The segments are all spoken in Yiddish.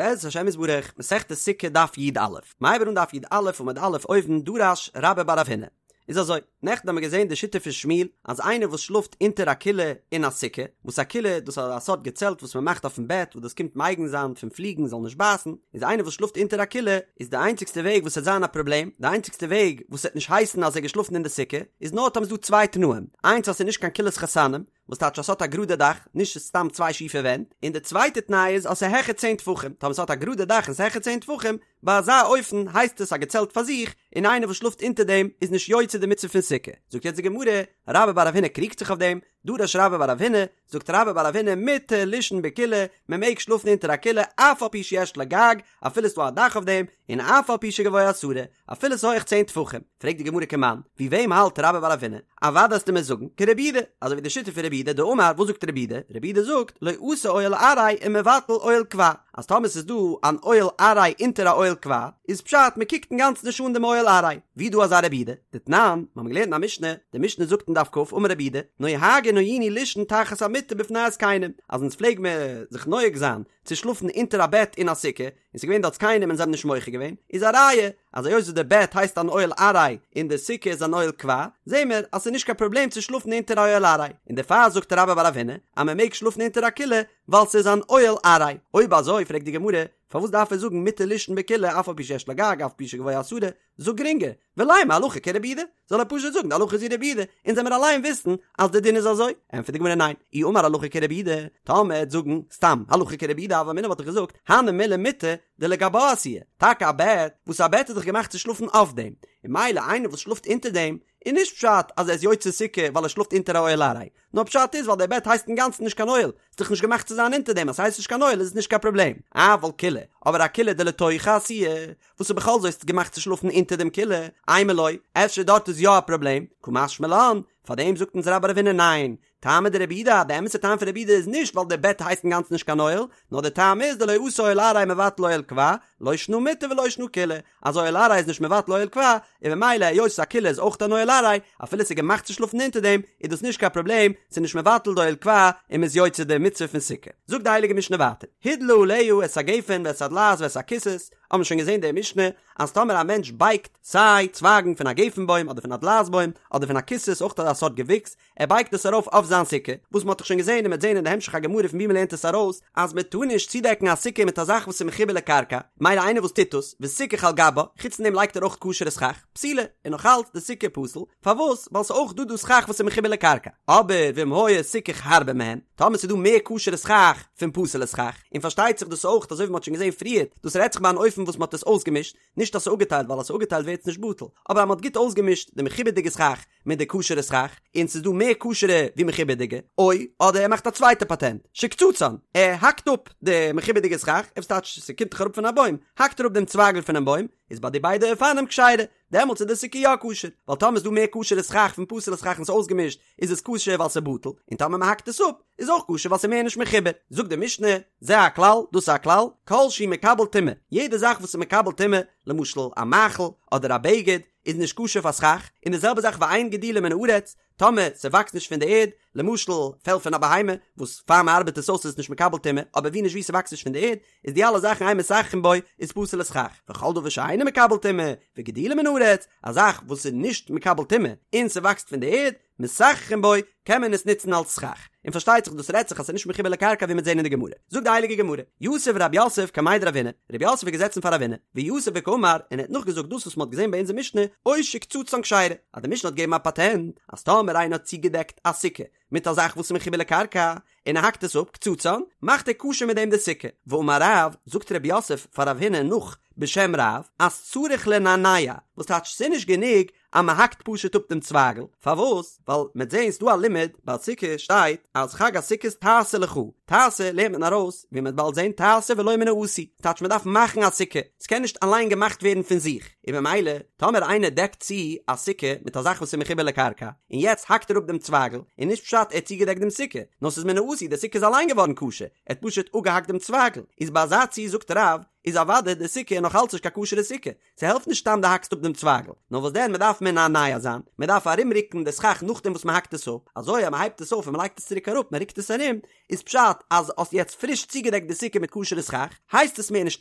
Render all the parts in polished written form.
בעזרת השם יתברך, מסכת סוכה דף י"א, מ'הייבט אן דף י"א עמוד א' אויבן דרש רבה בר רב הונא. איז אזוי, נעכטן האבן מיר געזען די שיטה פון שמואל אז איינער וואס שלאפט אונטער א כילה אין א סוכה, וואס א כילה דאס איז א סארט געצעלט וואס מען מאכט אויפן בעט וואס דאס קומט מגין זיין פון פליגן זאל נישט בייסן, איז איינער וואס שלאפט אונטער א כילה איז די איינציגסטע וועג וואס ס'עט זיין א פראבלעם, די איינציגסטע וועג וואס ס'עט נישט הייסן אז ער איז געשלאפן אין די סוכה, איז נאר טאמער ס'איז דא צוויי תנאים, איינס אז ס'איז נישט קיין כילת חתנים, וואס טייטש אז ס'האט א גראדע דאך, נישט סתם צוויי שיפע ווענט, און די צווייטע תנאי איז אז ס'איז העכער צען טפחים, טאמער ס'האט א גראדע דאך און ס'איז העכער צען טפחים, ביי אזא אופן הייסט עס א געצעלט פאר זיך, און איינער וואס שלאפט אונטער דעם איז נישט יוצא די מצוה פון סוכה. זאגט יעצט די גמרא, רבה בר רב הונא קריגט זיך אויף דעם, דרש רבה בר רב הונא, זאגט רבה בר רב הונא מותר לישון בכילה, מען מעג שלאפן אונטער א כילה אף על פי שיש לה גג, אפילו ס'דא א דאך אויף דעם, און אף על פי שגבוה עשרה, אפילו ס'איז הויעך צען טפחים. פרעגט די גמרא כמאן, ווי וועם האלט רבה בר רב הונא? אוודאי וועסטו מיר זאגן, כרבי יהודה, אזוי ווי די שיטה פון רבי יהודה דאמר, וואס זאגט רבי יהודה? רבי יהודה זאגט, לא אתי אוהל ארעי ומבטל אוהל קבע, אז טאמער ס'איז דא אן אוהל ארעי אונטער א אוהל קבע, איז פשט מ'קוקט אינגאנצן נישט אן דעם אוהל ארעי. ווי איז דא אזא רבי יהודה? דתנן, מ'האמיר געלערנט אין א משנה, די משנה זאגט אין דף כ, אמר רבי יהודה, נוהגין היינו לישון תחת המיטה בפני הזקנים, אז אונז פלעג מען זיך נוהג זיין צו שלאפן אונטער א בעט אין א סוכה, און ס'איז געווען דארט זקנים און זיי האבן נישט מוחה געווען, איז א ראיה אז היות וואס די בעט הייסט אן אוהל ארעי און די סוכה איז אן אוהל קבע, זעהן מיר אז ס'איז נישט קיין פראבלעם צו שלאפן אונטער א אוהל ארעי, און דערפאר זאגט רבה בר רב הונא אז מען מעג שלאפן אונטער א כילה ווייל ס'איז אן אוהל ארעי. אויב אזוי פרעגט די גמרא, פארוואס דארף ער זאגן מותר לישון בכילה אף על פי שיש לה גג אף על פי שגבוה עשרה, זאג גרינגער, ולימא הלכה כרבי יהודה, זאל ער פשוט זאגן די הלכה איז ווי רבי יהודה, אונז וועמיר אליין וויסן אז די דין איז אזוי, ענטפערט די גמרא ניין, אי אמר הלכה כרבי יהודה, טאמער ער וועט זאגן סתם הלכה כרבי יהודה הוה אמינא וואלט איך געזאגט, הני מילי מיטה דלגבה עשויה, טאקע א בעט, וואס א בעט איז דאך געמאכט צו שלאפן אויף דעם, און ממילא איינער וואס שלאפט אונטער דעם, איז נישט פשט אז ער איז יוצא סוכה ווייל ער שלאפט אונטער א אוהל ארעי, נאר פשט איז ווייל דער בעט הייסט אינגאנצן נישט קיין אוהל, ס'איז דאך נישט געמאכט צו זיין אונטער דעם, אז ס'הייסט נישט קיין אוהל איז עס נישט קיין פראבלעם, אבל כילה, אבער א כילה דלתוכה עשויה, וואס איז בכל זאת געמאכט צו שלאפן אונטער דעם כילה, אימא לא, אפשר דארט איז יא א פראבלעם, קא משמע לן, פארדעם זאגט אונז רבה בר רב הונא ניין, טעמא דרבי יהודה, די אמת'ע טעם פון רבי יהודה איז נישט ווייל דער בעט הייסט אינגאנצן נישט קיין אוהל, נאר די טעם איז דלא אתי אוהל ארעי מבטל אוהל קבע, לא שנא מיטה ולא שנא כילה, אז אוהל ארעי איז נישט מבטל אוהל קבע, און ממילא היות א כילה איז אויך אן אוהל ארעי, אפילו ס'איז געמאכט צו שלאפן אונטער דעם, איז דאס נישט קיין פראבלעם, ס'איז נישט מבטל די אוהל קבע, און מ'איז יוצא די מצוה פון סוכה. זאגט די הייליגע משנה ווייטער, הדלה עליה את הגפן ואת הדלעת ואת הקיסוס, האבן מיר שוין געזען די משנה, אז טאמער א מענטש בייגט סיי צווייגן פון א גפן בוים אדער פון א דלעת בוים אדער פון א קיסוס אויך אזא סארט געוויקס, ער בייגט עס ארויף אויף זיין סוכה, וואס מען האט דאך שוין געזען און מען וועט זען אין די המשך הגמרא פון ווי מען לערנט עס ארויס, אז מען טאר נישט צודעקן א סוכה מיט א זאך וואס איז מחובר לקרקע, מילא איינער וואס טוט דאס, וסיכך על גבה, חוץ פון דעם לייגט ער אויך כשר'ע סכך, פסולה, און נאך אלץ די סוכה פסול, פארוואס? ווייל ס'איז אויך דא דא סכך וואס איז מחובר לקרקע. אבער ואם היה סיכוך הרבה מהן, טאמער ס'איז דא מער כשר'ע סכך פון פסול'ע סכך, און פארשטייט זיך דאס אויך אזוי ווי מ'האט שוין געזען פריערט, דאס רעדט זיך ביי אן אופן וואס מ'האט עס אויסגעמישט, נישט אז ס'איז אפגעטיילט ווייל אז ס'איז אפגעטיילט ווערט עס נישט בטל, אבער אז מ'האט גוט אויסגעמישט די מחובר'דיגע סכך מיט די כשר'ע סכך, און ס'איז דא מער כשר'ע ווי מחובר'דיגע, או, אדער ער מאכט א צווייטע פאטענט, שקצצן, ער האקט אפ די מחובר'דיגע סכך, וואס טייטש ס'קומט דאך אראפ פון א בוים, האקט ער אפ דעם צווייגל פונעם בוים, איז ביי די ביידע אופנים כשרה, דעמאלטס איז די סוכה יא כשר, ווייל טאמער איז דא מער כשר'ע סכך פון פסול'ע סכך און ס'איז אויסגעמישט, איז עס כשר ווייל ס'איז בטל, און טאמער מ'האקט עס אפ, איז אויך כשר ווייל ס'איז מער נישט מחובר. זאגט די משנה, זה הכלל, דאס איז א כלל, כל שהוא מקבל טומאה, יעדע זאך וואס איז מקבל טומאה, למשל א מאכל, אדער א בגד, איז נישט כשר פאר סכך, און די זעלבע זאך ואין גידולו מן הארץ, טאמער ס'וואקסט נישט פון די ערד, למשל פעל פון א בהמה, וואס פאר מ'ארבעט עס אויס איז עס נישט מקבל טומאה, אבער ווי נישט ווי ס'וואקסט נישט פון די ערד, איז די אלע זאכן אין מסככין בו איז פסול לסכך, וכל דבר שאינו מקבל טומאה, וגידולו מן הארץ, א זאך וואס איז נישט מקבל טומאה און ס'וואקסט פון די ערד, מסככין בו, קען מען עס נוצן אלס סכך. און פארשטייט זיך דאס רעדט זיך אז ס'איז נישט מחובר לקרקע ווי מ'וועט זען אין די גמרא. זאגט די הייליגע גמרא, יתיב רב יוסף קמיה דרב הונא, רב יוסף איז געזעצן פאר רב הונא, ויתיב וקאמר, און ער האט נאכגעזאגט דאס וואס מ'האט געזען ביי אונזער משנה, או שקצצן כשרה, אז די משנה האט געגעבן א פאטענט, אז טאמער איינער האט צוגעדעקט א סוכה מיט א זאך וואס איז מחובר לקרקע, און ער האקט עס אפ, קצצן, מאכט ער כשר מיט דעם די סוכה. ואמר רב, זאגט רב יוסף פאר רב הונא נאך בשם רב, אז צריך לנענע, וואס טייטש ס'איז נישט גענוג אז מען האקט פשוט אפ דעם צווייגל, פארוואס? ווייל מ'עט זעהן ס'דא א לימוד ביי סוכה שטייט אז חג הסוכות תעשה לך, תעשה לערנט מען ארויס ווי מ'עט באלד זעהן תעשה ולא מן העשוי, טייטש מ'דארף מאכן א סוכה, ס'קען נישט אליין געמאכט ווערן פון זיך, און במילא טאמער איינער דעקט צו א סוכה מיט א זאך וואס איז מחובר לקרקע, און יעצט האקט ער אפ דעם צווייגל, איז נישט פשט ער האט צוגעדעקט דעם סוכה, נאר ס'איז מן העשוי די סוכה איז אליין געווארן כשר, ער האט פשוט אפגעהאקט דעם צווייגל, איז ביי אזא ציור זאגט רב, איז אוודאי די סוכה נאך אלץ נישט קיין כשר'ע סוכה, ס'העלפט נישט סתם דו האקסט אפ דעם צווייגל, נאר וואס דען מ'דארף מנענע זיין, מ'דארף ארומרוקן די סכך נאכדעם וואס מ'האקט עס אפ, אזוי אז מ'הייבט עס אויף און מ'לייגט עס צוריק אראפ, מ'רוקט עס ארום, איז פשט אז האסט יעצט פריש צוגעדעקט די סוכה מיט כשר'ע סכך, הייסט עס מער נישט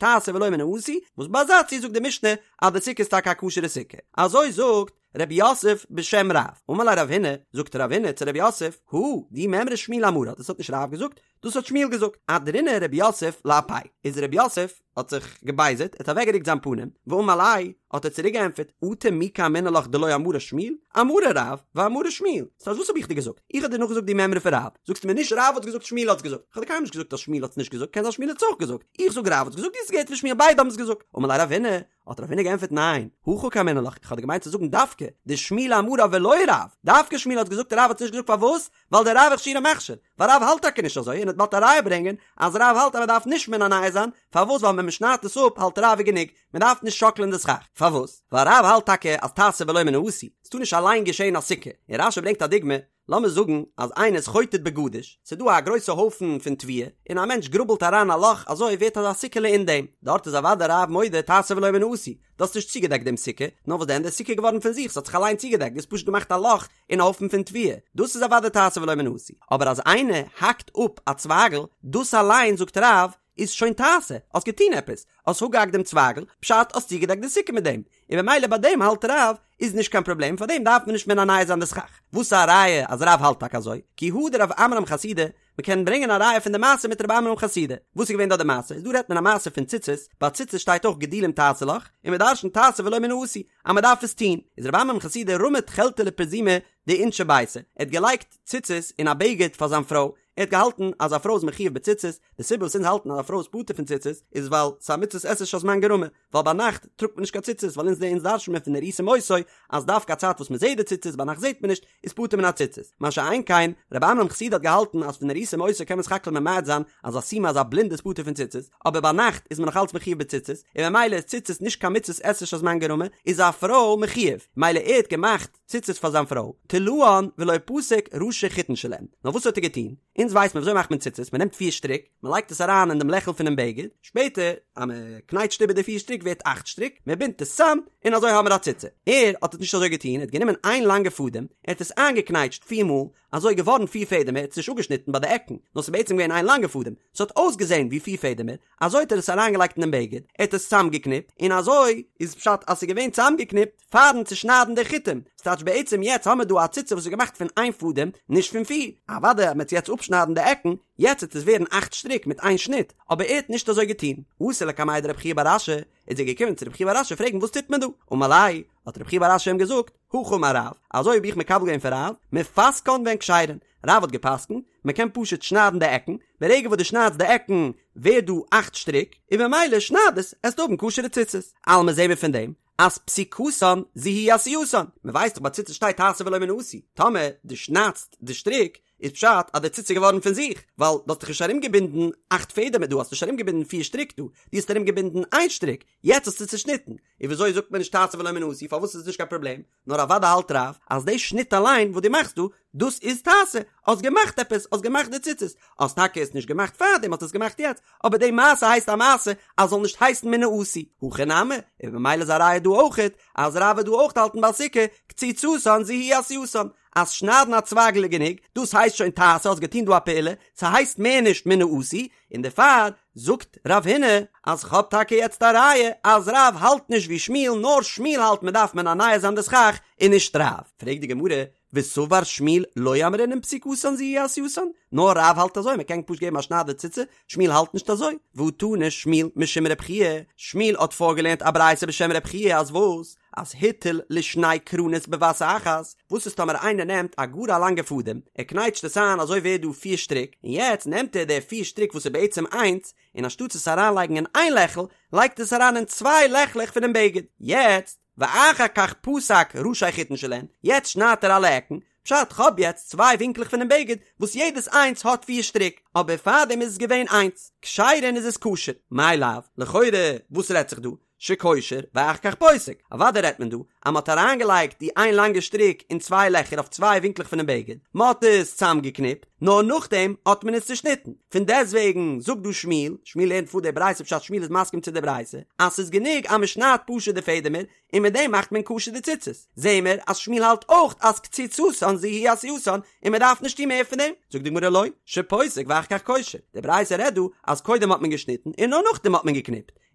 תעשה ולא מן העשוי, וואס ביי אזא ציור זאגט די משנה אז די סוכה איז טאקע א כשר'ע סוכה. אזוי זאגט רב יוסף בשם רב. אמר ליה רב הונא, זאגט רב הונא צו רב יוסף, הא, די מימרא שמואל אמרה, דאס האט נישט רב געזאגט, דאס האט שמואל געזאגט, אהדרינהו רב יוסף לאפיה, איז רב יוסף האט זיך געבייזערט, ער האט אוועקגערוקט זיין פנים, ואמר ליה, האט ער צוריק געענטפערט, אטו מי קאמינא לך דלא אמרה שמואל, אמרה רב, ואמרה שמואל, ס'הייסט וואס האב איך דיר געזאגט? איך האב דיר נאכגעזאגט די מימרא פון רב, זאגסטו מיר נישט רב האט געזאגט שמואל האט געזאגט, איך האב דיר קיינמאל נישט געזאגט אז שמואל האט עס נישט געזאגט, קען זיין שמואל האט עס אויך געזאגט, איך זאג רב האט געזאגט, דו האסט געהערט פון שמואל ביידע האבן עס געזאגט, אמר ליה רב הונא, האט רב הונא געענטפערט ניין, הכי קאמינא לך, איך האב דיר געמיינט צו זאגן דווקא, דשמואל אמרה ולא רב, דווקא שמואל האט געזאגט רב האט עס נישט געזאגט פארוואס? ווייל דרב אכשורי מכשיר, ווייל רב האלט טאקע נישט אזוי און ער וועט באלד א ראיה ברענגען אז רב האלט אז מען דארף נישט מנענע זיין, פארוואס ווייל ווען מען שניידט עס אפ האלט רב איז גענוג, מען דארף נישט שאקלען די סכך, פארוואס? ווייל רב האלט טאקע אז תעשה ולא מן העשוי, ס'טאר נישט אליין געשען א סוכה, און רש"י ברענגט א דוגמא, לאמיר זאגן אז איינער איז חוטט בגדיש, ס'איז דא א גרויסע הויפן פון תבואה, און א מענטש גראבלט אריין א לאך אזוי ווערט אזא סוכה'לע אין דעם, דארט איז אוודאי רב מודה תעשה ולא מן העשוי, דו האסט נישט צוגעדעקט דעם סוכה, נאר וואס דען די סוכה איז געווארן פון זיך, ס'האט זיך אליין צוגעדעקט, דו האסט פשוט געמאכט א לאך אין א הויפן פון תבואה, דאס איז אוודאי תעשה ולא מן העשוי, אבער אז איינער האקט אפ א צווייגל, דאס אליין זאגט רב איז שוין תעשה, האסט געטון עפעס, האסט אפגעהאקט דעם צווייגל, פשט האסט צוגעדעקט די סוכה מיט דעם, און במילא ביי דעם האלט רב איז נישט קיין פראבלעם פאר דעם דארף מען נישט מנענע זיין די סכך. וואס איז א ראיה אז רב האלט טאקע אזוי? כי הא דרב עמרם חסידא, מען קען ברענגען א ראיה פון די מעשה מיט רב עמרם חסידא. וואס איז געווען דארט די מעשה? איז דא רעדט מען א מעשה פון ציצית, ביי ציצית שטייט אויך גדילים תעשה לך, און מען דרשנ'ט תעשה ולא מן העשוי, אז מען דארף עס טון. איז רב עמרם חסידא רמא תכלתא לפרזומא דאינשי ביתיה, ער האט געלייגט ציצית אין א בגד פאר זיין פרוי, ער האט געהאלטן אז א פרוי איז מחויב בציצית, די סיבה וואס אונז האלטן אז א פרוי איז פטור פון ציצית איז ווייל ס'איז א מצות עשה שהזמן גרמא, ווייל ביינאכט טראגט מען נישט קיין ציצית ווייל אונז אונז דרש'ן מיר פון וראיתם אותו אז דווקא א צייט וואס מ'זעט די ציצית ביינאכט זעט מען נישט איז פטור מן הציצית, מה שאין כן רב עמרם חסידא האט געהאלטן אז פון וראיתם אותו קען מען סך הכל ממעט זיין אז א סומא אז א בלינדע איז פטור פון ציצית, אבער ביינאכט איז מען נאך אלץ מחויב בציצית, און ממילא איז ציצית נישט קיין מצות עשה שהזמן גרמא, איז א פרוי מחויב, ממילא ער האט געמאכט. ציצית פאר זיין פרוי, תלאן ולא פסק ראשי חוטין שלהן. נאר וואס האט ער געטון? אונז ווייסט מען וויאזוי מאכט מען ציצית, מען נעמט פיר שטריק, מען לייגט עס אריין אין דעם לעכל פונעם בגד, שפעטער אז מען קנייטשט איבער די פיר שטריק ווערט אכט שטריק, מען בינדט עס צאם, און אזוי האבן מיר א ציצית. ער האט עס נישט אזוי געטון, ער האט גענומען איין לאנגע פאדעם, ער האט עס איינגעקנייטשט פיר מאל, אזוי געווארן פיר פעדעמער, ער האט עס נישט אפגעשניטן ביי די עקן, נאר ס'איז בעצם געווען איין לאנגע פאדעם, ס'האט אויסגעזען ווי פיר פעדעמער, אזוי האט ער עס אריינגעלייגט אינעם בגד, ער האט עס צאמגעקניפט, און אזוי איז פשט אז ס'איז געווען צאמגעקניפט פארן צושניידן די חוטים, ס'טייטש בעצם יעצט האמיר דא א ציצית וואס איז געמאכט פון איין פאדעם, נישט פון פיר, אוודאי אז מ'עט יעצט אפשניידן די עקן, יעצט וועט עס ווערן אכט שטריק מיט איין שניט, אבער ער האט נישט אזוי געטון. אתא לקמיה דרב חייא בר אשי, איז ער געקומען צו רב חייא בר אשי פרעגן וואס טוט מען דא, אמר ליה, האט רב חייא בר אשי אים געזאגט, הכי אמר רב, אזוי האב איך מקבל געווען פון רב, מפסקן והן כשרין, רב האט געפסקנט, מען קען פשוט שניידן די עקן, ברגע וואס דו שניידסט די עקן ווערט דא אכט שטריק, און ממילא שנייד עס, עסטו האבן כשר'ע ציצית. אלמא זעהן מיר פון דעם אז פסיקתן זו היא עשייתן, מען ווייסט דאך ביי ציצית שטייט תעשה ולא מן העשוי, טאמער דו שניידסט די שטריק איז פשט אז די ציצית איז געווארן פון זיך, ווייל דו האסט דאך נישט ארומגעבינדן אכט פעדעמער דא, האסט נישט ארומגעבינדן פיר שטריק דא, דו האסט ארומגעבינדן איין שטריק, יעצט האסטו צושניטן, און וויאזוי זאגט מען נישט תעשה ולא מן העשוי, פארוואס איז עס נישט קיין פראבלעם? נאר אוודאי האלט רב אז די שניט אליין וואס דו מאכסט דא, דאס איז תעשה, האסט געמאכט עפעס, האסט געמאכט די ציצית, האסט טאקע עס נישט געמאכט פארדעם האסט עס געמאכט יעצט, אבער די מעשה הייסט א מעשה אז זאל נישט הייסן מן העשוי, הכא נמי, און ממילא איז א ראיה דא אויכעט אז רב וועט דא אויך האלטן ביי סוכה, קציצתן זו היא עשייתן, אז שניידן א צווייגל איז גענוג, דאס הייסט שוין תעשה, האסט געטון דא א פעולה, ס'הייסט מער נישט מן העשוי, און דערפאר זאגט רב הונא אז כ'האב טאקע יעצט א ראיה אז רב האלט נישט ווי שמואל נאר שמואל האלט מ'דארף מנענע זיין די סכך און נישט רב. פרעגט די גמרא, וסבר שמואל לא אמרינן פסיקתן זו היא עשייתן, נאר רב האלט אזוי מ'קען פשוט געבן א שנייד די ציצית, שמואל האלט נישט אזוי, והא תנא שמואל משום רב חייא, שמואל האט פארגעלערנט א ברייתא בשם רב חייא אז וואס? אז הטיל לשני קרנות בבת אחת, וואס איז טאמער איינער נעמט א גאר א לאנגע פאדעם, ער קנייטשט עס איין אזוי ווערט דא פיר שטריק, און יעצט נעמט ער די פיר שטריק וואס איז בעצם איינס, און אנשטאטס עס אריינלייגן אין איין לעכל, לייגט עס אריין אין צוויי לעכלעך פונעם בגד, יעצט, ואחר כך פסק ראשי חוטין שלהן, יעצט שניידט ער אלע עקן, פשט, כ'האב יעצט צוויי ווינקלעך פונעם בגד, וואס יעדעס איינס האט פיר שטריק, אבער פארדעם איז עס געווען איינס, כשרין איז עס כשר, מאי לאו, לכאורה, וואס רעדט זיך דא? שקושר ואחר כך פוסק, אוודאי רעדט מען דא אז מ'האט אריינגעלייגט די איין לאנגע שטריק אין צוויי לעכער אויף צוויי ווינקלעך פונעם בגד, מ'האט עס צאמגעקניפט, נאר נאכדעם האט מען עס צושניטן. פון דעסטוועגן זאגט דא שמואל, שמואל לערנט פאר די ברייתא פשט שמואל איז מסכים צו די ברייתא, אז ס'איז גענוג אז מ'שניידט פשוט די פעדעמער, און מיט דעם מאכט מען כשר די ציצית. זעהן מיר אז שמואל האלט אויך אז קציצתן זו היא עשייתן און מען דארף נישט טון מער פון דעם. זאגט די גמרא לא, שפוסק ואחר כך קושר, די ברייתא רעדט דא אז קודם האט מען געשניטן און נאר נאכדעם האט מען געקניפט,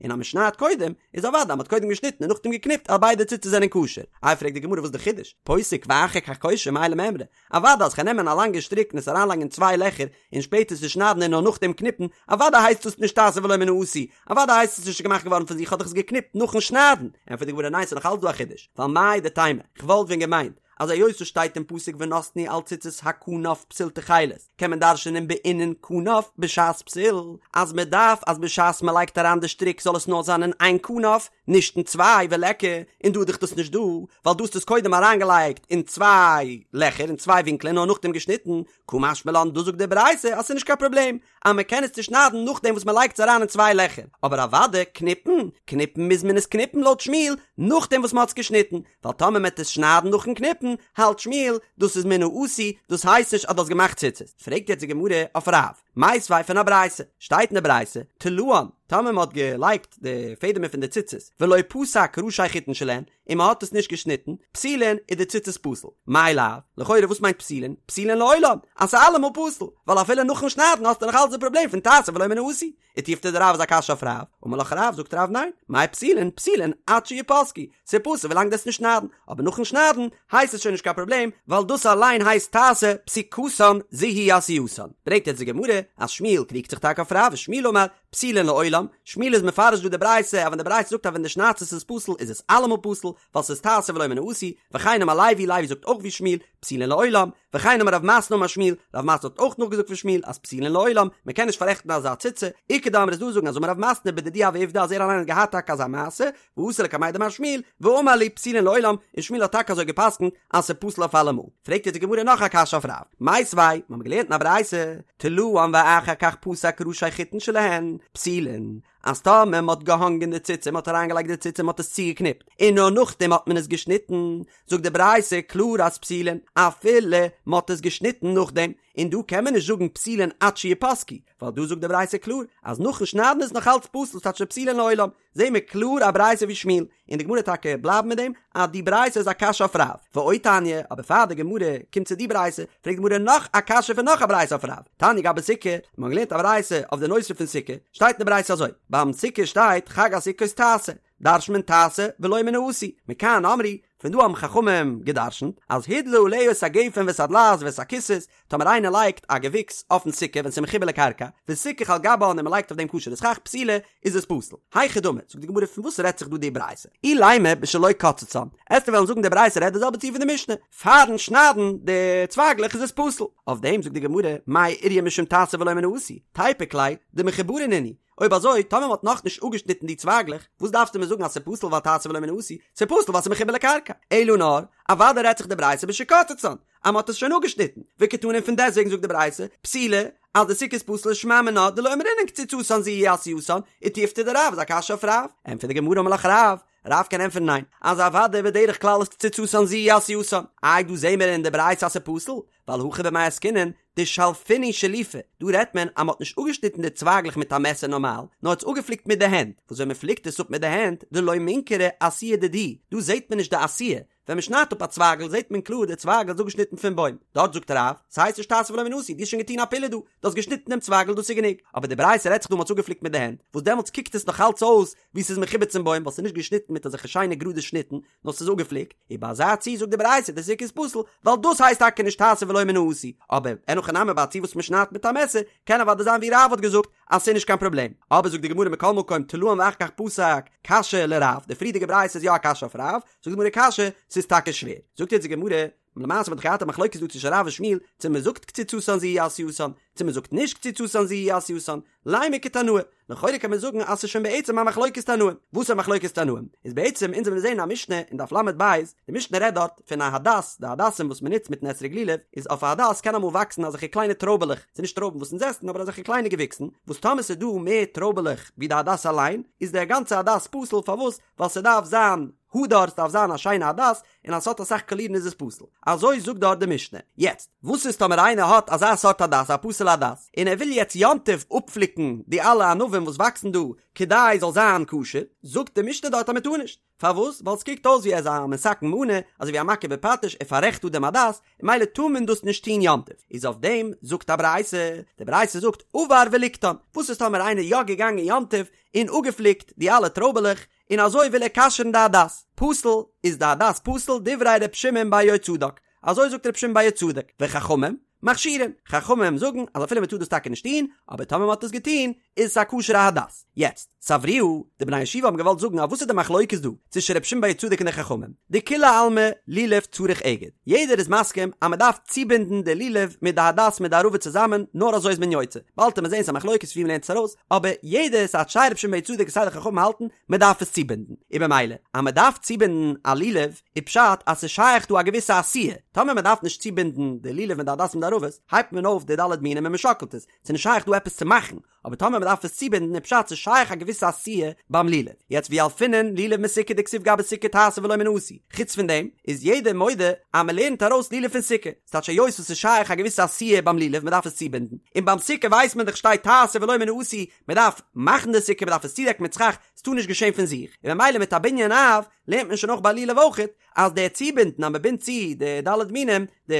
און אז מען שניידט קודם, איז אוודאי אז מען האט קודם געשניטן און נאכדעם געקניפט אז ביידע ציצית זענען כשר. איי פרעגט די גמרא וואס איז די חידוש? פוסק ואחר כך קושר מאי למימרא? אוודאי אז כ'קען נעמען א לאנגע שטריק און עס אריינלייגן אין צוויי לעכער און שפעטער צושניידן און נאר נאכדעם קניפן, אוודאי הייסט דאס נישט תעשה ולא מן העשוי, אוודאי הייסט עס נישט געמאכט געווארן פון זיך כ'האב דאך עס געקניפט נאכן שניידן. ענטפערט די גמרא ניין ס'איז נאך אלץ דא א חידוש, ווייל מהו דתימא, כ'וואלט ווען געמיינט אז היות ס'שטייט אין פסוק ונתנו על ציצית הכנף פתיל תכלת, קען מען דרש'נען בעינן כנף בשעת פתיל, אז מען דארף אז בשעת מען לייגט אריין די שטריק זאל עס נאר זיין אין איין כנף, נישט אין צוויי, וליכא, און דא איז דאך דאס נישט דא, ווייל דא האסטו עס קודם אריינגעלייגט אין צוויי לעכער אין צוויי ווינקלען נאר נאכדעם געשניטן, קא משמע לן דאס זאגט די ברייתא אז ס'איז נישט קיין פראבלעם אז מען קען עס צושניידן נאכדעם וואס מען לייגט עס אריין אין צוויי לעכער, אבער אוודאי קניפן, קניפן מוז מען עס קניפן לויט שמואל נאכדעם וואס מען האט עס געשניטן, ווייל טאמער מען וועט עס שניידן נאכן קניפן, האלט שמואל, דאס איז מן העשוי, דאס הייסט נישט אז דו האסט געמאכט ציצית. פרעגט יעצט די גמרא אויף רב, מיתיבי פון א ברייתא, שטייט אין די ברייתא, תלאן, טאמער מען האט געלייגט די פעדעמער פון די ציצית, ולא פסק ראשי חוטין שלהן, און מען האט עס נישט געשניטן, פסולין, איז די ציצית פסול. מאי לאו, לכאורה וואס מיינט פסולין? פסולין לעולם, אז ס'איז אלעמאל פסול, ווייל אפילו נאכן שניידן האסטו נאך אלץ די פראבלעם פון תעשה ולא מן העשוי. ותיובתא דרב איז א קשיא אויף רב, אמר לך רב, זאגט רב ניין, מאי פסולין, פסולין עד שיפסקו, ס'איז פסול ווילאנג דו וועסט נישט שניידן, אבער נאכן שניידן הייסט עס שוין נישט קיין פראבלעם, ווייל דאס אליין הייסט תעשה פסיקתן זו היא עשייתן. ברענגט יעצט די גמרא אז שמואל קריגט זיך טאקע אויף רב ושמואל אמר, פסולין לעולם, שמואל איז מפרש דא די ברייתא אז ווען די ברייתא זאגט אז ווען דו שניידסט עס איז פסול איז עס אלעמאל פסול, ווייל ס'איז תעשה ולא מן העשוי, וכן אמר לוי, לוי זאגט אויך ווי שמואל, פסולין לעולם, וכן אמר רב מתנה אמר שמואל, רב מתנה האט אויך נאכגעזאגט פון שמואל אז פסולין לעולם, מען קען נישט פאררעכטן אזא ציצה, איכא דאמרי איז דא זאגן אז אמר רב מתנה בדידי הוה עובדא אז ער אליין האט געהאט טאקע אזא מעשה, ואתא לקמיה דמר שמואל, ואמר להו פסולין לעולם, און שמואל האט טאקע אזוי געפסקנט אז ס'איז פסול אויף אלעמאל. פרעגט יעצט די גמרא נאך א קשיא אויף רב, מיתיבי, מיר האבן געלערנט אין א ברייתא, תלאן ואחר כך פסק ראשי חוטין שלהן, פסולין, אז טאמער מ'האט געהאנגען די ציצה, מ'האט אריינגעלייגט די ציצה, מ'האט עס צוגעקניפט, און נאר נאכדעם האט מען עס געשניטן, זאגט די ברייתא קלאר אז פסולין, אפילו מ'האט עס געשניטן נאכדעם, און דא קען מען נישט זאגן פסולין עד שיפסקו, ווייל דא זאגט די ברייתא קלאר אז נאכן שניידן איז נאך אלץ פסול, ס'טייטש פסולין לעולם, זעהן מיר קלאר א ברייתא ווי שמואל, און די גמרא טאקע בלייבט מיט דעם אז די ברייתא איז א קשיא אויף רב, ועוד תניא, אבער פאר די גמרא קומט צו די ברייתא, פרעגט די גמרא נאך א קשיא פון נאך א ברייתא אויף רב, תניא גבי סוכה, מיר האבן געלערנט א ברייתא אויף די נושא פון סוכה, שטייט אין די ברייתא אזוי, ביים סוכה שטייט חג הסוכות תעשה, דרש'נט מען תעשה ולא מן העשוי, מכאן אמרו, פון דא האבן חכמים גע'דרש'נט אז הדלה עליה את הגפן ואת הדלעת ואת הקיסוס, טאמער איינער לייגט א געוויקס אויפן סוכה ווען ס'איז מחובר לקרקע, וסיכך על גבה און מ'לייגט אויף דעם כשר'ע סכך פסולה, איז עס פסול. היכי דמי, זאגט די גמרא פון וואס רעדט זיך דא די ברייתא? אילימא בשלא קצצן, עסטו וועלן זאגן די ברייתא רעדט די זעלבע ציור פון די משנה, פארן שניידן די צווייגלעך איז עס פסול. אויף דעם זאגט די גמרא, מאי איריא משום תעשה ולא מן העשוי, תיפוק ליה דמחוברין נינהו, אויב אזוי, טאמער מ'האט נאכנישט אפגעשניטן די צווייגלעך, וואס דארפסטו מיר זאגן אז ס'איז פסול ווייל תעשה ולא מן העשוי? ס'איז פסול ווייל ס'איז מחובר לקרקע. אלא נאר, אוודאי רעדט זיך די ברייתא בשקצצן, אז מ'האט עס שוין אפגעשניטן. וקתני פון דעסטוועגן זאגט די ברייתא, פסולה, אז די סוכה איז פסול שמע מינה דלא אמרינן קציצתן זו היא עשייתן, ותיובתא דרב איז א קשיא אויף רב. ענטפערט די גמרא אמר לך רב, רב קען ענטפערן ניין, אז אוודאי בדרך כלל איז קציצתן זו היא עשייתן. איי דא זעהן מיר אין די ברייתא אז ס'איז פסול? ווייל הכא במאי עסקינן דשלפינהו שלופי, דא רעדט מען אז מ'האט נישט אפגעשניטן די צווייגלעך מיט א מעסער נארמאל, נאר האט עס אפגעפליקט מיט די הענט, וואס ווען מ'פליקט עס אפ מיט די הענט, דלא מינכרא עשיה דידהו, דא זעהט מען נישט די עשיה, ווען מ'שניידט אפ א צווייגל זעהט מען קלאר די צווייגל איז אפגעשניטן פון בוים, דארט זאגט רב, ס'הייסט נישט תעשה ולא מן העשוי, דו האסט שוין געטון א פעולה דא, דו האסט געשניטן דעם צווייגל דאס איז גענוג, אבער די ברייתא רעדט זיך דא מ'האט עס אפגעפליקט מיט די הענט, וואס דעמאלטס קוקט עס נאך אלץ אויס ווי ס'איז מחובר צום בוים ווייל ס'איז נישט געשניטן מיט אזעלכע שיינע גראדע שניטן, נאר ס'איז אפגעפליקט, און ביי אזא ציור זאגט די ברייתא די סוכה איז פסול, ווייל דאס הייסט טאקע נישט תעשה ולא מן העשוי, אבער אין הכי נמי ביי א ציור וואס מ'שניידט מיט א מעסער, קען אוודאי זיין ווי רב האט געזאגט אז ס'איז נישט קיין פראבלעם, אבער זאגט די גמרא מכל מקום תלאן ואחר כך פסק, קשיא לרב, די פריערדיגע ברייתא איז יא א קשיא אויף רב, זאגט די גמרא קשיא, ס'איז טאקע שווער, זאגט יעצט די גמרא. למעשה האט מען דאך געהאט א מחלוקת דא צווישן רב און שמואל צו מען זאגט קציצתן זו היא עשייתן צו מען זאגט נישט קציצתן זו היא עשייתן, לימא כתנאי, לכאורה קען מען זאגן אז ס'איז שוין בעצם א מחלוקת תנאים, וואס איז א מחלוקת תנאים? איז בעצם אונז האבן געזען א משנה אין דף ל"ב, די משנה רעדט דארט פון א הדס, די הדסים וואס מ'נוצט מיטן אתרוג לולב, איז אויף א הדס קען אמאל וואקסן אזעלכע קליינע טרויבעלעך, ס'איז נישט טרויבן וואס אונז עסן אבער אזעלכע קליינע געוויקסן, וואס טאמער ס'איז דא מער טרויבעלעך ווי די הדס אליין, איז דער גאנצע הדס פסול, פארוואס? ווייל ס'דארף זיין הדר, ס'דארף זיין א שיינע הדס, און אז ס'האט אסאך קאלירן איז עס פסול. אזוי זאגט דארט די משנה. יעצט, וואס איז טאמער איינער האט אזא סארט הדס, א פסול'ע הדס, און ער וויל יעצט יום טוב אפפליקן די אלע ענבים וואס וואקסן דא כדי זאל זיין כשר, זאגט די משנה דארט אז מ'טאר נישט. פארוואס? ווייל ס'קוקט אויס ווי ער איז א מתקן מנא, אזוי ווי א מכה בפטיש, ער פאררעכט דא דעם הדס, און ממילא טאר מען דאס נישט טון יום טוב. איז אויף דעם זאגט א ברייתא, די ברייתא זאגט עבר וליקטן, וואס איז טאמער איינער יא געגאנגען יום טוב און אפגעפליקט די אלע טרויבעלעך, און אזוי וויל ער כשר'ן די הדס, פסול, איז די הדס פסול, דברי ר' שמעון בר יהוצדק, אזוי זאגט ר' שמעון בר יהוצדק, וחכמים מכשירין, חכמים זאגן אז אפילו מען טאר דאס טאקע נישט טון, אבער טאמער מען האט עס געטון, איז עס א כשר'ע הדס. יעצט, סברוה, די בני הישיבה האבן געוואלט זאגן אז וואס איז די מחלוקת דא, צווישן ר' שמעון בר יהוצדק און די חכמים, דכולי עלמא לולב צריך אגד, יעדער איז מסכים אז מען דארף צובינדן די לולב מיט די הדס מיט די ערבה צוזאמען, נאר אזוי איז מען יוצא, באלד וועט מען זען ס'איז א מחלוקת ווי מען לערנט עס ארויס, אבער יעדער סיי סיי ר' שמעון בר יהוצדק און סיי די חכמים האלטן מען דארף עס צובינדן, און במילא אז מען דארף צובינדן א לולב איז פשט אז ס'איז שייך דא א געוויסע עשיה, טאמער מען דארף נישט צובינדן די לולב מיט די הדס מיט די ערבות, הייבט מען אויף די ד' מינים און מען שאקלט עס, ס'איז נישט שייך דא עפעס צו מאכן, אבער טאמער מען דארף עס צובינדן איז פשט ס'איז שייך א געוויסע עשיה ביים לולב, יעצט וילפינן לולב מסוכה דכתיב גבי סוכה תעשה ולא מן העשוי, חוץ פון דעם איז יעדער מודה אז מען לערנט ארויס לולב פון סוכה, ס'טייטש היות וואס ס'איז שייך א געוויסע עשיה ביים לולב מען דארף עס צובינדן, און ביים סוכה ווייסט מען דאך שטייט תעשה ולא מן העשוי, מען דארף מאכן די סוכה מען דארף עס צודעקן מיט סכך, ס'טאר נישט געשען פון זיך, און ממילא מיט א בנין אב לערנט מען שוין אויך ביי לולב אויכעט אז דער צובינדן אז מען בינדט צו די ד' מינים, די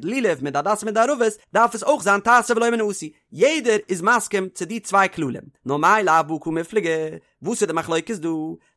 לולב מיט די הדס מיט די ערבות, דארף עס אויך זיין תעשה ולא מן העשוי, יעדער איז מסכים צו די צוויי כללים, נאר מאי לאו בהא קמיפלגי, וואס איז די מחלוקת דא?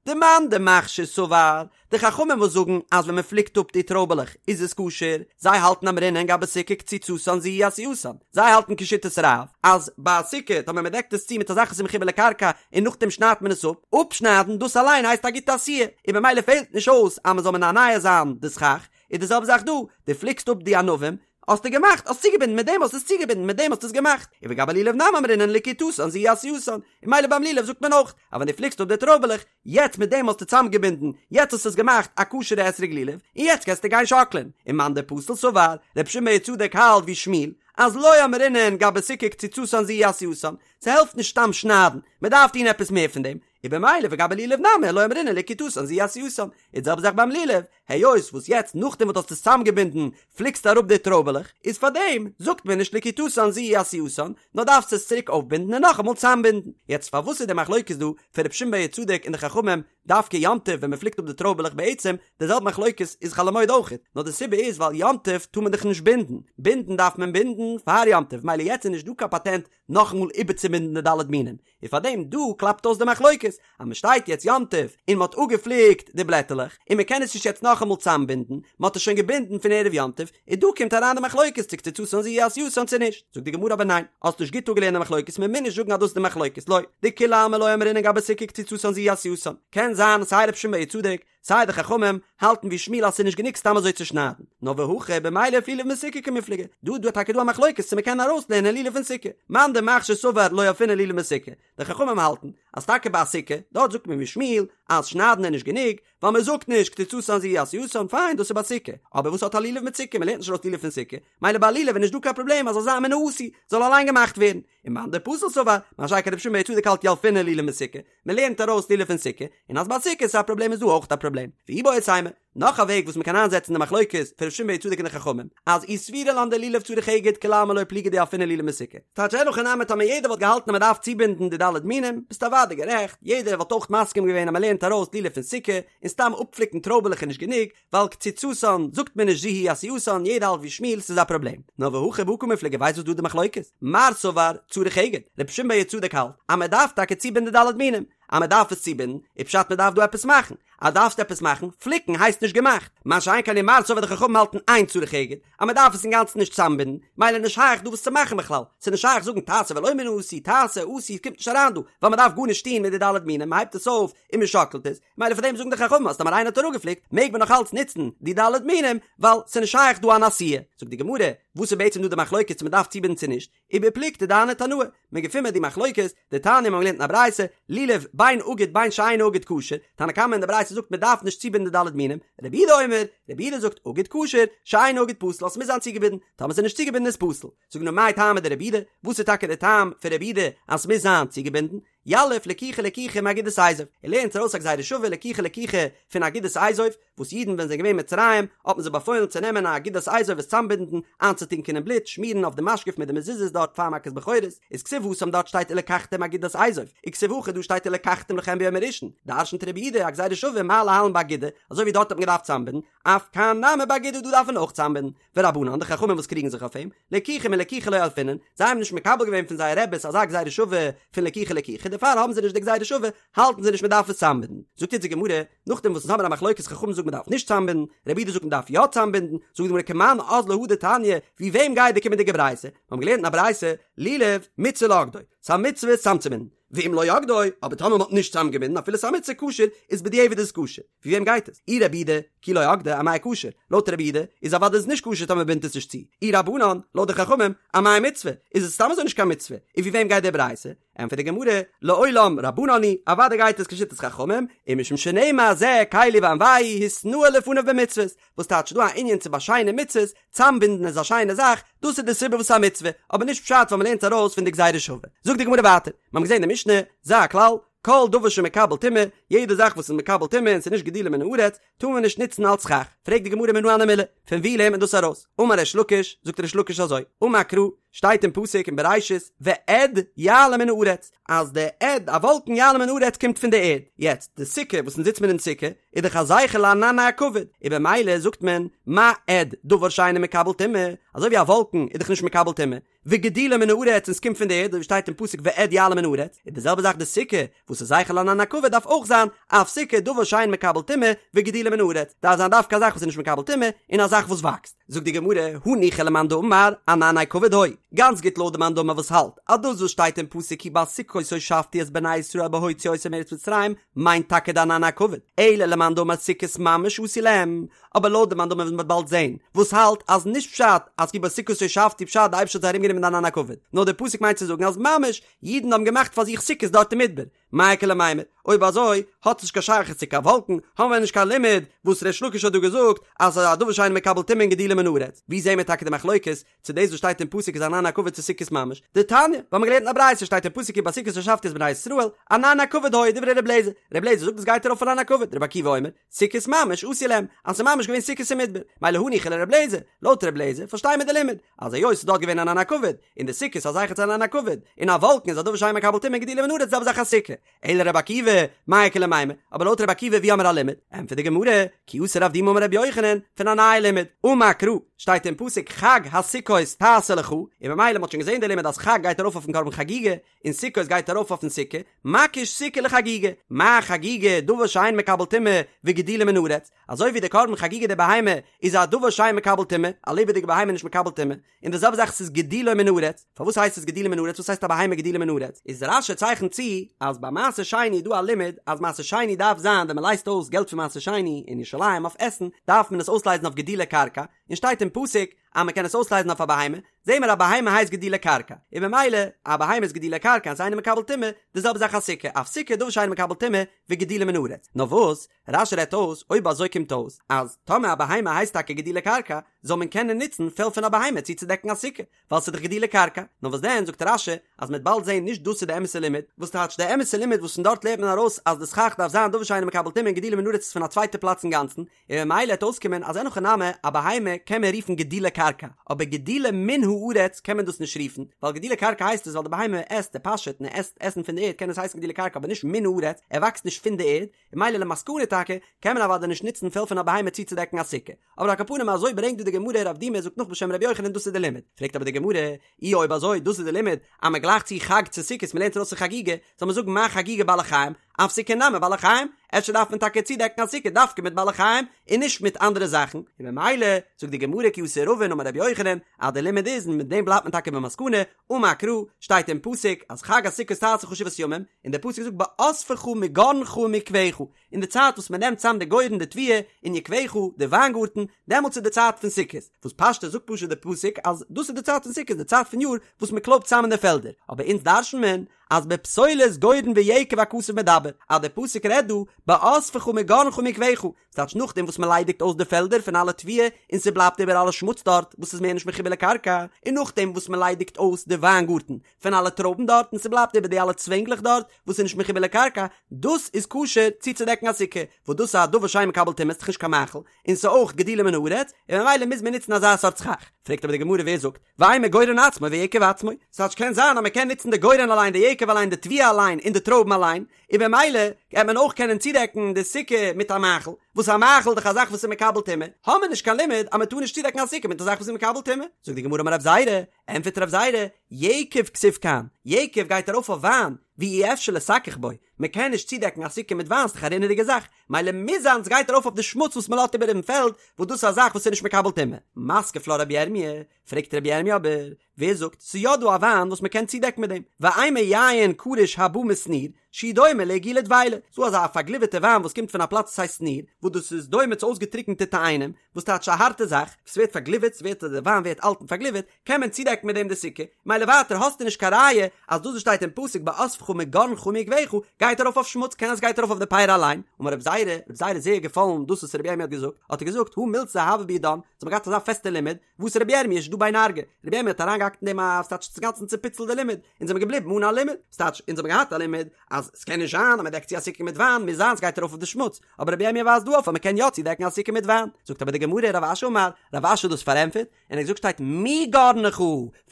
דמאן דמכשיר סבר, די חכמים וואס זאגן אז ווען מען פליקט אפ די טרויבעלעך איז עס כשר, זיי האלטן אמרינן גבי סוכה קציצתן זו היא עשייתן, זיי האלטן כשיטת רב אז ביי א סוכה טאמער מען דעקט עס צו מיט א זאך וואס איז מחובר לקרקע און נאכדעם שניידט מען עס אפ, אפשניידן דאס אליין הייסט א גוטע עשיה, און במילא פעלט נישט אויס אז מען זאל מנענע זיין די סכך, איז די זעלבע זאך דא, דו פליקסט אפ די ענבים, האסטו געמאכט, האסט צוגעבינדן, מיט דעם האסטו עס צוגעבינדן, מיט דעם האסטו עס געמאכט, און וגבי לולב נמי אמרינן לקיטתן זו היא עשייתן, און ממילא ביים לולב זאגט מען אויך, אז ווען דו פליקסט אפ די טרויבעלעך, יעצט מיט דעם האסטו צוזאמגעבינדן, יעצט האסטו עס געמאכט א כשר'ע אתרוג לולב, און יעצט קענסטו גיין שאקלען. און מאן דפסיל סבר, רבי שמעון בר יהוצדק האלט ווי שמואל, אז לא אמרינן גבי סוכה קציצתן זו היא עשייתן, ס'העלפט נישט סתם שניידן, מ'דארף טון עפעס מער פון דעם, און במילא וגבי לולב נמי לא אמרינן לקיטתן זו היא עשייתן, איז די זעלבע זאך ביים לולב, היות וואס יעצט נאכדעם וואס דו האסט עס צוזאמגעבינדן פליקסטו אראפ די טרויבעלעך, איז פארדעם זאגט מען נישט לקיטתן זו היא עשייתן, נאר דארפסט עס צוריק אויפבינדן און נאכאמאל צוזאמבינדן. יעצט פארוואס איז די מחלוקת דא פון רבי שמעון בר יהוצדק און די חכמים דווקא יום טוב ווען מען פליקט אפ די טרויבעלעך בעצם די זעלבע מחלוקת איז חול המועד אויכעט, נאר די סיבה איז ווייל יום טוב טאר מען דאך נישט בינדן, בינדן דארף מען בינדן פאר יום טוב מילא יעצט איז נישט דא קיין פאטענט נאכאמאל איבערצובינדן די ד' מינים, און פאר דעם דא קלאפט אויס די מחלוקת, אז מען שטייט יעצט יום טוב און מען האט אפגעפליקט די בלעטעלעך, און מען קען עס נישט יעצט נאכאמאל צאמבינדן, מען האט עס שוין געבינדן פון ערב יום טוב, און דא קומט אריין די מחלוקת צו קציצתן זו היא עשייתן צו נישט, זאגט די גמרא אבער ניין, האסט נישט גוט אפגעלערנט די מחלוקת, מען מוז נישט זאגן אז דאס איז די מחלוקת, לא, דכולי עלמא לא אמרינן גבי סוכה קציצתן זו היא עשייתן, קען זיין סיי רבי שמעון בר יהוצדק, סיי די חכמים האלטן ווי שמואל אז ס'איז נישט גענוג סתם אזוי צו שניידן, נאר והכא במילף לולב מסוכה קמיפלגי, דא דא טאקע דא א מחלוקת צו מ'קען ארויסלערנען לולב פון סוכה, מאן דמכשיר סבר לא ילפינן לולב מסוכה, די חכמים האלטן אז טאקע ביי א סוכה, דארט זאגט מען ווי שמואל אז שניידן איז נישט גענוג, ווייל מ'זאגט נישט קציצתן זו היא עשייתן, פיין דאס איז ביי סוכה, אבער וואס האט א לולב מיט סוכה, מ'לערנט נישט ארויס לולב פון סוכה, מילא ביי א לולב איז נישט דא קיין פראבלעם אז זאל זיין מן העשוי, זאל אליין געמאכט ווערן, און מאן דפסיל סבר, מה שאין כן רבי שמעון בר יהוצדק האלט ילפינן לולב מסוכה, מען לערנט ארויס לולב פון סוכה, און אז ביי סוכה איז א פראבלעם איז דא אויך א פראבלעם. ואיבעית אימא, נאך א וועג וואס מען קען איינזעצן די מחלוקת פון רבי שמעון בר יהוצדק און די חכמים, אז אי סבירא לן דלולב צריך אגד כולי עלמא לא פליגי דילפינן לולב מסוכה. טייטש אין הכי נמי טאמער יעדער וואלט געהאלטן אז מען דארף צובינדן די ד' מינים, ביסטו אוודאי גערעכט, יעדער וואלט אויך מסכים געווען אז מען לערנט ארויס לולב פון סוכה, און סתם אפפליקן טרויבעלעך איז נישט גענוג, ווייל קציצתן זאגט מען נישט זו היא עשייתן, יעדער האלט ווי שמואל ס'איז א פראבלעם. נאר והכא בהא קמיפלגי ווייסט וואס דא די מחלוקת? מר סבר צריך אגד, רבי שמעון בר יהוצדק האלט אז מען דארף טאקע צובינדן די ד' מינים. אז מען דארף עס צובינדן, איז פשט מען דארף דא עפעס מאכן, אז דארפסט עפעס מאכן, פליקן הייסט נישט געמאכט, מה שאין כן ומר סבר די חכמים האלטן אין צריך אגד, אז מען דארף עס אינגאנצן נישט צוזאמבינדן, מילא נישט שייך דא וואס צו מאכן בכלל, ס'איז נישט שייך זאגן תעשה ולא מן העשוי, תעשה, עשוי, קומט נישט אריין דא, ווייל מען דארף גארנישט טון מיט די ד' מינים, מען הייבט עס אויף און מען שאקלט עס, מילא פאר דעם זאגן די חכמים אז טאמער איינער האט אראפגעפליקט מעג מען נאך אלץ נוצן די ד' מינים, ווייל ס'איז נישט שייך דא אן עשיה. זאגט די גמרא, וואס איז בעצם דא די מחלוקת צו מען דארף צובינדן צו נישט, ובפלוגתא דהני תנאי, מען געפינט מיר די מחלוקת, דתניא מיר האבן געלערנט אין א ברייתא, לולב בין אגוד בין שאינו אגוד כשר, תנא קמא אין די ברייתא זאגט מען דארף נישט צובינדן די ד' מינים, רבי יהודה אומר, רבי יהודה זאגט אגוד כשר, שאינו אגוד פסול אז ס'מוז זיין צוגעבינדן, טאמער ס'איז נישט צוגעבינדן איז פסול. זאגט די גמרא מאי טעמא דרבי יהודה, וואס איז טאקע די טעם פון רבי יהודה אז ס'מוז זיין צוגעבינדן? יליף לקיחה לקיחה מאגודת אזוב, ער לערנט ארויס א גזירה שווה לקיחה לקיחה פון אגודת אזוב, וואס אידן ווען זיי זענען געווען אין מצרים האט מען זיי באפוילן צו נעמען א אגודת אזוב עס צאמבינדן, איינצוטונקען אין בלוט, שמירן אויף די משקוף מיט די מזוזות דארט פאר מכת בכורות, איז כתיב התם דארט שטייט ולקחתם אגודת אזוב, וכתיב הכא דא שטייט ולקחתם לכם ביום הראשון, דרשנט רבי יהודה א גזירה שווה מה להלן באגודה, אזוי ווי דארט האט מען געדארפט צאמבינדן, אף כאן נמי באגודה דא דארף מען אויך צאמבינדן, ורבנן, די חכמים וואס קריגן זיך אויף אים, לקיחה מלקיחה לא ילפינן, זיי האבן נישט מקבל געווען פון זייער רעבעס אזא גזירה שווה פון לקיחה לקיחה, דערפאר האבן זיי נישט די גזירה שווה, האלטן זיי נישט מען דארף עס צאמבינדן. זאגט יעצט די גמרא, נאכדעם וואס אונז האבן א מחלוקת חכמים זאגן מען דארף נישט צאמבינדן, רבי יהודה זאגט מען דארף יא צאמבינדן, זאגט די גמרא כמאן אזלא הא דתניא, ווי וועם גייט די קומענדיגע ברייתא? מיר האבן געלערנט אין א ברייתא, לולב, מצוה לאוגדו, ס'איז א מצוה עס צאמצובינדן, ואם לא אגדו, אבער טאמער מ'האט נישט צאמגעבינדן אפילו ס'איז א מצוה כשר, איז בדיעבד איז עס כשר. ווי וועם גייט עס? אי רבי יהודה, כי לא אגדו, אמאי כשר? לויט רבי יהודה, איז אוודאי איז נישט כשר טאמער מ'בינדט עס נישט צו. אי רבנן, לויט די חכמים, אמאי מצוה? איז עס סתם אזוי נישט קיין מצוה. און ווי וועם גייט די ברייתא? ענטפערט די גמרא, לעולם רבנן היא, אוודאי גייט עס כשיטת חכמים, ומשום שנאמר זה קלי ואנוהו התנאה לפניו במצוות, וואס טייטש דא א ענין צו באשיינען מצוות, צאמבינדן איז א שיינע זאך, דאס איז די סיבה וואס ס'איז א מצוה, אבער נישט פשט ווייל מ'לערנט ארויס פון די גזירה שווה. זאגט די גמרא ווייטער, מיר האבן געזען אין די משנה, זה הכלל, כל דבר שמקבל טומאה, יעדע זאך וואס איז מקבל טומאה און ס'איז נישט גידולו מן הארץ, טאר מען נישט נוצן אלס סכך. פרעגט די גמרא מנא הני מילי, פון וואו לערנט מען דאס ארויס? אמר ריש לקיש, זאגט ריש לקיש אזוי, אמר קרא, שטייט אין פסוק אין בראשית, ואד יעלה מן הארץ, אז די אד, א וואלקן יעלה מן הארץ קומט פון די ערד. יעצט, די סוכה וואס אונז זיצט מען אין סוכה, איז דאך א זכר לענני הכבוד, און במילא זאגט מען, מה אד, דבר שאינו מקבל טומאה, אזוי ווי א וואלקן איז דאך נישט מקבל טומאה, וגידולו מן הארץ און ס'קומט פון די ערד, אזוי ווי שטייט אין פסוק ואד יעלה מן הארץ, איז די זעלבע זאך די סוכה, וואס איז זכר לענני הכבוד דארף אויך זיין, אף סוכה דבר שאין מקבל טומאה, וגידולו מן הארץ, דארף זיין דווקא א זאך וואס איז נישט מקבל טומאה, און א זאך וואס וואקסט. זאגט די גמרא, הניחא למאן דאמר, ענני כבוד היו, גאנץ גוט לויט די מאן דאמר וואס האלט, אז דאס וואס שטייט אין פסוק כי בסוכות הושבתי את בני ישראל בהוציא אותם מארץ מצרים, מיינט טאקע די ענני הכבוד, אלא למאן דאמר סוכות ממש עשו להם, אבער לויט די מאן דאמר וואס מ'וועט באלד זעהן, וואס האלט אז נישט פשט אז כי בסוכות הושבתי פשט די אייבערשטער האט זיי ארום גענומען די ענני הכבוד, נאר די פסוק מיינט צו זאגן אז ממש אידן האבן געמאכט פאר זיך סוכות דארט אין מדבר, מאי איכא למימר, אויב אזוי האט עס נישט קיין שייכות צו קיין וואלקן, האבן מיר נישט קיין לימוד וואס ריש לקיש האט דא געזאגט אז ס'איז א דבר שאינו מקבל טומאה און גידולו מן הארץ, ווי זעהן מיר טאקע די מחלוקת צו דאס וואס שטייט אין פסוק איז ענני הכבוד צו סוכות ממש, דתניא, ווייל מ'האט געלערנט אין א ברייתא שטייט אין פסוק כי בסוכות הושבתי את בני ישראל, ענני הכבוד היו דברי ר' אליעזר, ר' אליעזר זאגט דאס גייט ארויף אויף ענני הכבוד, רבי עקיבא אומר, סוכות ממש עשו להם, אז ס'איז ממש געווען סוכות אין מדבר, מילא הניחא לר' אליעזר, לויט ר' אליעזר פארשטיי מיר די לימוד, אז היות ס'איז דארט געווען ענני הכבוד, און די סוכות איז א זכר צו ענני הכבוד, און א וואלקן איז א דבר שאין מקבל טומאה גידולו מן הארץ זעלבע זאך א סוכה, אלא רבי עקיבא, מאי איכא למימר, אבער לויט רבי עקיבא ווי האמיר א לימוד? ענטפערט די גמרא, כי אתא רב דימי אמר רבי יוחנן, פון א נייע לימוד, אמר קרא, שטייט אין פסוק חג הסוכות תעשה לך, און ממילא מ'האט שוין געזען די לימוד אז חג גייט ארויף אויפן קרבן חגיגה, און סוכות גייט ארויף אויפן סוכה, מקיש סוכה לחגיגה, מה חגיגה דבר שאין מקבל טומאה וגידולו מן הארץ, אזוי ווי די קרבן חגיגה די בהמה איז א דבר שאין מקבל טומאה, א לעבעדיגע בהמה איז נישט מקבל טומאה, און די זעלבע זאך ס'איז גידולו מן הארץ, פארוואס הייסט עס גידולו מן הארץ, וואס הייסט א בהמה גידולו מן הארץ, איז רש"י צייכנט צו אז ביי מעשר שני איז דא א לימוד אז מעשר שני דארף זיין ווען מ'לייזט אויס געלט פון מעשר שני אין ירושלים אויף עסן דארף מען עס אויסלייזן אויף גידולי קרקע, און שטייט אין פסוק אז מ'קען עס אויסלייזן אויף א בהמה, זעהן מיר א בהמה הייסט גידולי קרקע, און ממילא א בהמה איז גידולי קרקע און ס'איז אינו מקבל טומאה, די זעלבע זאך א סוכה, אף סוכה דבר שאינו מקבל טומאה וגידולו מן הארץ, נאר וואס? רש"י רעדט אויס, אויב אזוי קומט אויס אז טאמער א בהמה הייסט טאקע גידולי קרקע, זאל מען קענען נוצן פעל פון א בהמה צו צודעקן א סוכה, ווייל ס'איז דאך גידולי קרקע. נאר וואס דען, זאגט רש"י, אז מ'וועט באלד זען נישט דאס איז די אמת'ע לימוד, וואס טייטש די אמת'ע לימוד וואס פון דארט לערנט מען ארויס אז די סכך דארף זיין דבר שאינו מקבל טומאה און גידולו מן הארץ איז פון א צווייטע פלאץ אינגאנצן, און ממילא העט אויסקומען אז אין הכי נמי א בהמה קען מען רופן גידולי קרקע, אבער גידולו מן הארץ קען מען דאס נישט רופן, ווייל גידולי קרקע הייסט עס ווייל די בהמה עסט, ער פאשעט און ער עסט עסן פון די ערד קען עס הייסן גידולי קרקע אבער נישט מן הארץ, ער וואקסט נישט פון די ערד, און ממילא למסקנא טאקע קען מען אוודאי נישט נוצן פעל פון א בהמה צוצודעקן א סוכה. אבער על כל פנים אזוי ברענגט דא די גמרא רב דימי זאגט נאך בשם רבי יוחנן דאס איז די לימוד. פרעגט אבער די גמרא, אי אויב אזוי דאס איז די לימוד אז מען גלייכט צו חג צו סוכות מען לערנט ארויס פון חגיגה, זאל מען זאגן מה חגיגה בעלי חיים, אף סוכה נמי בעלי חיים, אפשר דארף מען טאקע צודעקן א סוכה דווקא מיט בעלי חיים און נישט מיט אנדערע זאכן, און ממילא זאגט די גמרא כי אתא רבין אמר רבי יוחנן אז די לימוד איז און מיט דעם בלייבט מען טאקע במסקנא, אמר קרא, שטייט אין פסוק אז חג הסוכות תעשה לך שבעת ימים, און דער פסוק זאגט באספך מגרנך ומיקבך, אין די צייט וואס מען נעמט צאם די גורן די תבואה און יקבך די וויינגארטן, דעמאלטס איז די צייט פון סוכות, וואס פשטות זאגט פשוט די פסוק אז דאס איז די צייט פון סוכות די צייט פון יאר וואס מען קלויבט צאם אין די פעלדער, אבער אונז דרש'נט מען אז בפסולת גורן ויקב הכתוב מדבר, אז די פסוק רעדט דא באספך מגרנך ומיקבך, ס'טייטש נאכדעם וואס מען ליידיגט אויס די פעלדער פון אלע תבואה און ס'בלייבט איבער אלע שמוץ דארט וואס איז מער נישט מחובר לקרקע, און נאכדעם וואס מען ליידיגט אויס די וויינגארטן פון אלע טרויבן דארט און ס'בלייבט איבער די אלע צווענגלעך דארט וואס איז נישט מחובר לקרקע, דאס איז כשר צוצודעקן א סוכה, וואס דאס איז א דבר שאין מקבל טומאה, ס'דאך נישט קיין מאכל, און ס'איז אויך גידולו מן הארץ, און ממילא מוז מען נוצן אזא סארט סכך. פרעגט אבער די גמרא ווער זאגט, ואימא גורן עצמו ויקב עצמו, ס'טייטש קען זיין אז מ'קען נוצן די גורן אליין די יקב אליין די תבואה אליין און די טרויבן אליין, און במילא גייט מען אויך קענען צודעקן די סוכה מיט א מאכל, וואס א מאכל איז דאך א זאך וואס איז מקבל טומאה, האמיר נישט קיין לימוד אז מ'טאר נישט צודעקן א סוכה מיט א זאך וואס איז מקבל טומאה. זאגט די גמרא אמר רב זירא, ענטפערט רב זירא, יקב כתיב כאן, יקב גייט ארויף אויף וויין, ואי אפשר לסכך בו, מען קען נישט צודעקן א סוכה מיט וויין ס'דאך א רינעדיגע זאך, מילא מוז זיין ס'גייט ארויף אויף די שמוץ וואס מ'לאזט איבער אין פעלד, וואס דאס איז א זאך וואס איז נישט מקבל טומאה. מתקיף לה רבי ירמי', פרעגט רבי ירמי' אבער, ווער זאגט ס'איז יא דא א וויין וואס מ'קען צודעקן מיט דעם, ואימא יין קרוש הבא משניר, שהוא דומה לעיגולי דבילה, ס'דא אזא פארגליווערטע וויין וואס קומט פון א פלאץ וואס הייסט שניר, וואס דאס איז דומה צו אויסגעטריקענטע תאנים, וואס טייטש א הארטע זאך, וואס ווערט פארגליווערט, ס'ווערט די וויין ווערט אלט און פארגליווערט, קען מען צודעקן מיט דעם די סוכה, מילא ווייטער האסטו נישט קיין ראיה אז דאס וואס שטייט אין פסוק באספך מגרנך ומיקבך גייט ארויף אויף שמוץ, קען אז ס'גייט ארויף אויף די פירי אליין, אמר רב זירא, רב זירא איז זייער געפאלן דאס וואס רבי ירמי' האט געזאגט, האט ער געזאגט הא מילתא הוה בידן, זיי האבן געהאט אזא פעסטע לימוד, ואתא רבי ירמי' שדא ביה נרגא, רבי ירמי' האט אריינגעהאקט אין דעם א ס'טייטש אינגאנצן צופיצלט די לימוד, אונז זעמיר געבליבן אן א לימוד, ס'טייטש אונז האבן געהאט א לימוד אז ס'קען נישט זיין אז מ'דעקט צו א סוכה מיט וויין, מוז זיין ס'גייט ארויף אויף די שמוץ, אבער רבי ירמי' ווייזט דא אויף אז מ'קען יא צודעקן א סוכה מיט וויין, זאגט אבער די גמרא רב אשי אמר, רב אשי האט דאס פארענטפערט, און ער האט געזאגט שטייט מגרנך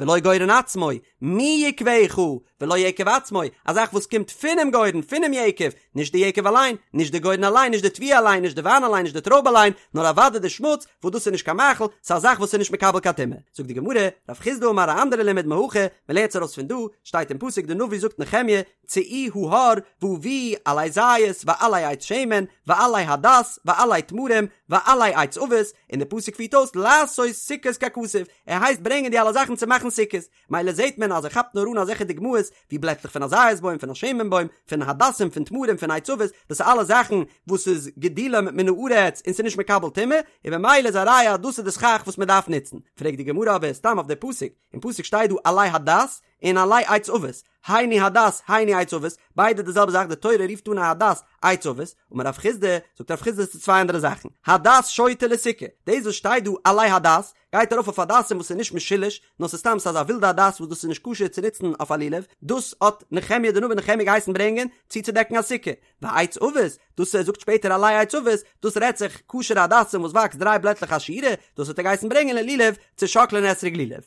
ולא גורן עצמו, מיקבך ולא יקב עצמו, א זאך וואס קומט פונעם גורן, פונעם יקב, נישט די יקב אליין, נישט די גורן אליין, נישט די תבואה אליין, נישט די וויין אליין, נישט די טרויב אליין, נאר אוודאי די שמוץ, וואס דאס איז נישט קיין מאכל, ס'איז א זאך וואס איז נישט מקבל קיין טומאה. זאגט די גמרא, רב חסדא אמר א אנדערע לימוד מהכא, מען לערנט עס ארויס פון דא, שטייט אין פסוק די נביא זאגט נחמיה, צאו ההר והביאו עלי זית ועלי עץ שמן ועלי הדס ועלי תמרים ועלי עץ עבות, און די פסוק פירט אויס לעשות סוכות ככתוב, ער הייסט ברענגען די אלע זאכן צו מאכן סוכות, מילא זעט מען אז ער כאפט נאר אן אזעלכע דוגמאות ווי בלעטלעך פון א זית בוים, פון א שמן בוים, פון הדסים, פון תמרים, פון עץ עבות, דאס איז אלע זאכן וואס איז גידולם מן הארץ און ס'איז נישט מקבל טומאה, און במילא איז א ראיה אז דאס איז די סכך וואס מען דארף נוצן. פרעגט די גמרא אבער סתם אויף די פסוק, אין פסוק שטייט דא עלי הדס און עלי עץ עבות, היינו הדס היינו עץ עבות, ביידע די זעלבע זאך, די תורה רופט אן א הדס עץ עבות, אמר רב חסדא, זאגט רב חסדא עס איז צוויי אנדערע זאכן, הדס שוטה לסוכה, דאס וואס שטייט דא עלי הדס, גייט ארויף אויף הדסים וואס איז נישט משולש, נאר ס'איז סתם ס'איז אזא ווילדע הדס וואס דאס איז נישט כשר צו נוצן אויף א לולב, דאס האט נחמיה די נביא נחמיה געהייסן ברענגען צו צודעקן א סוכה, ועץ עבות, דאס ער זאגט שפעטער עלי עץ עבות, דאס רעדט זיך כשר'ע הדסים וואס וואקסט דריי בלעטלעך א שורה, דאס האט ער געהייסן ברענגען ללולב צו שאקלען אתרוג לולב.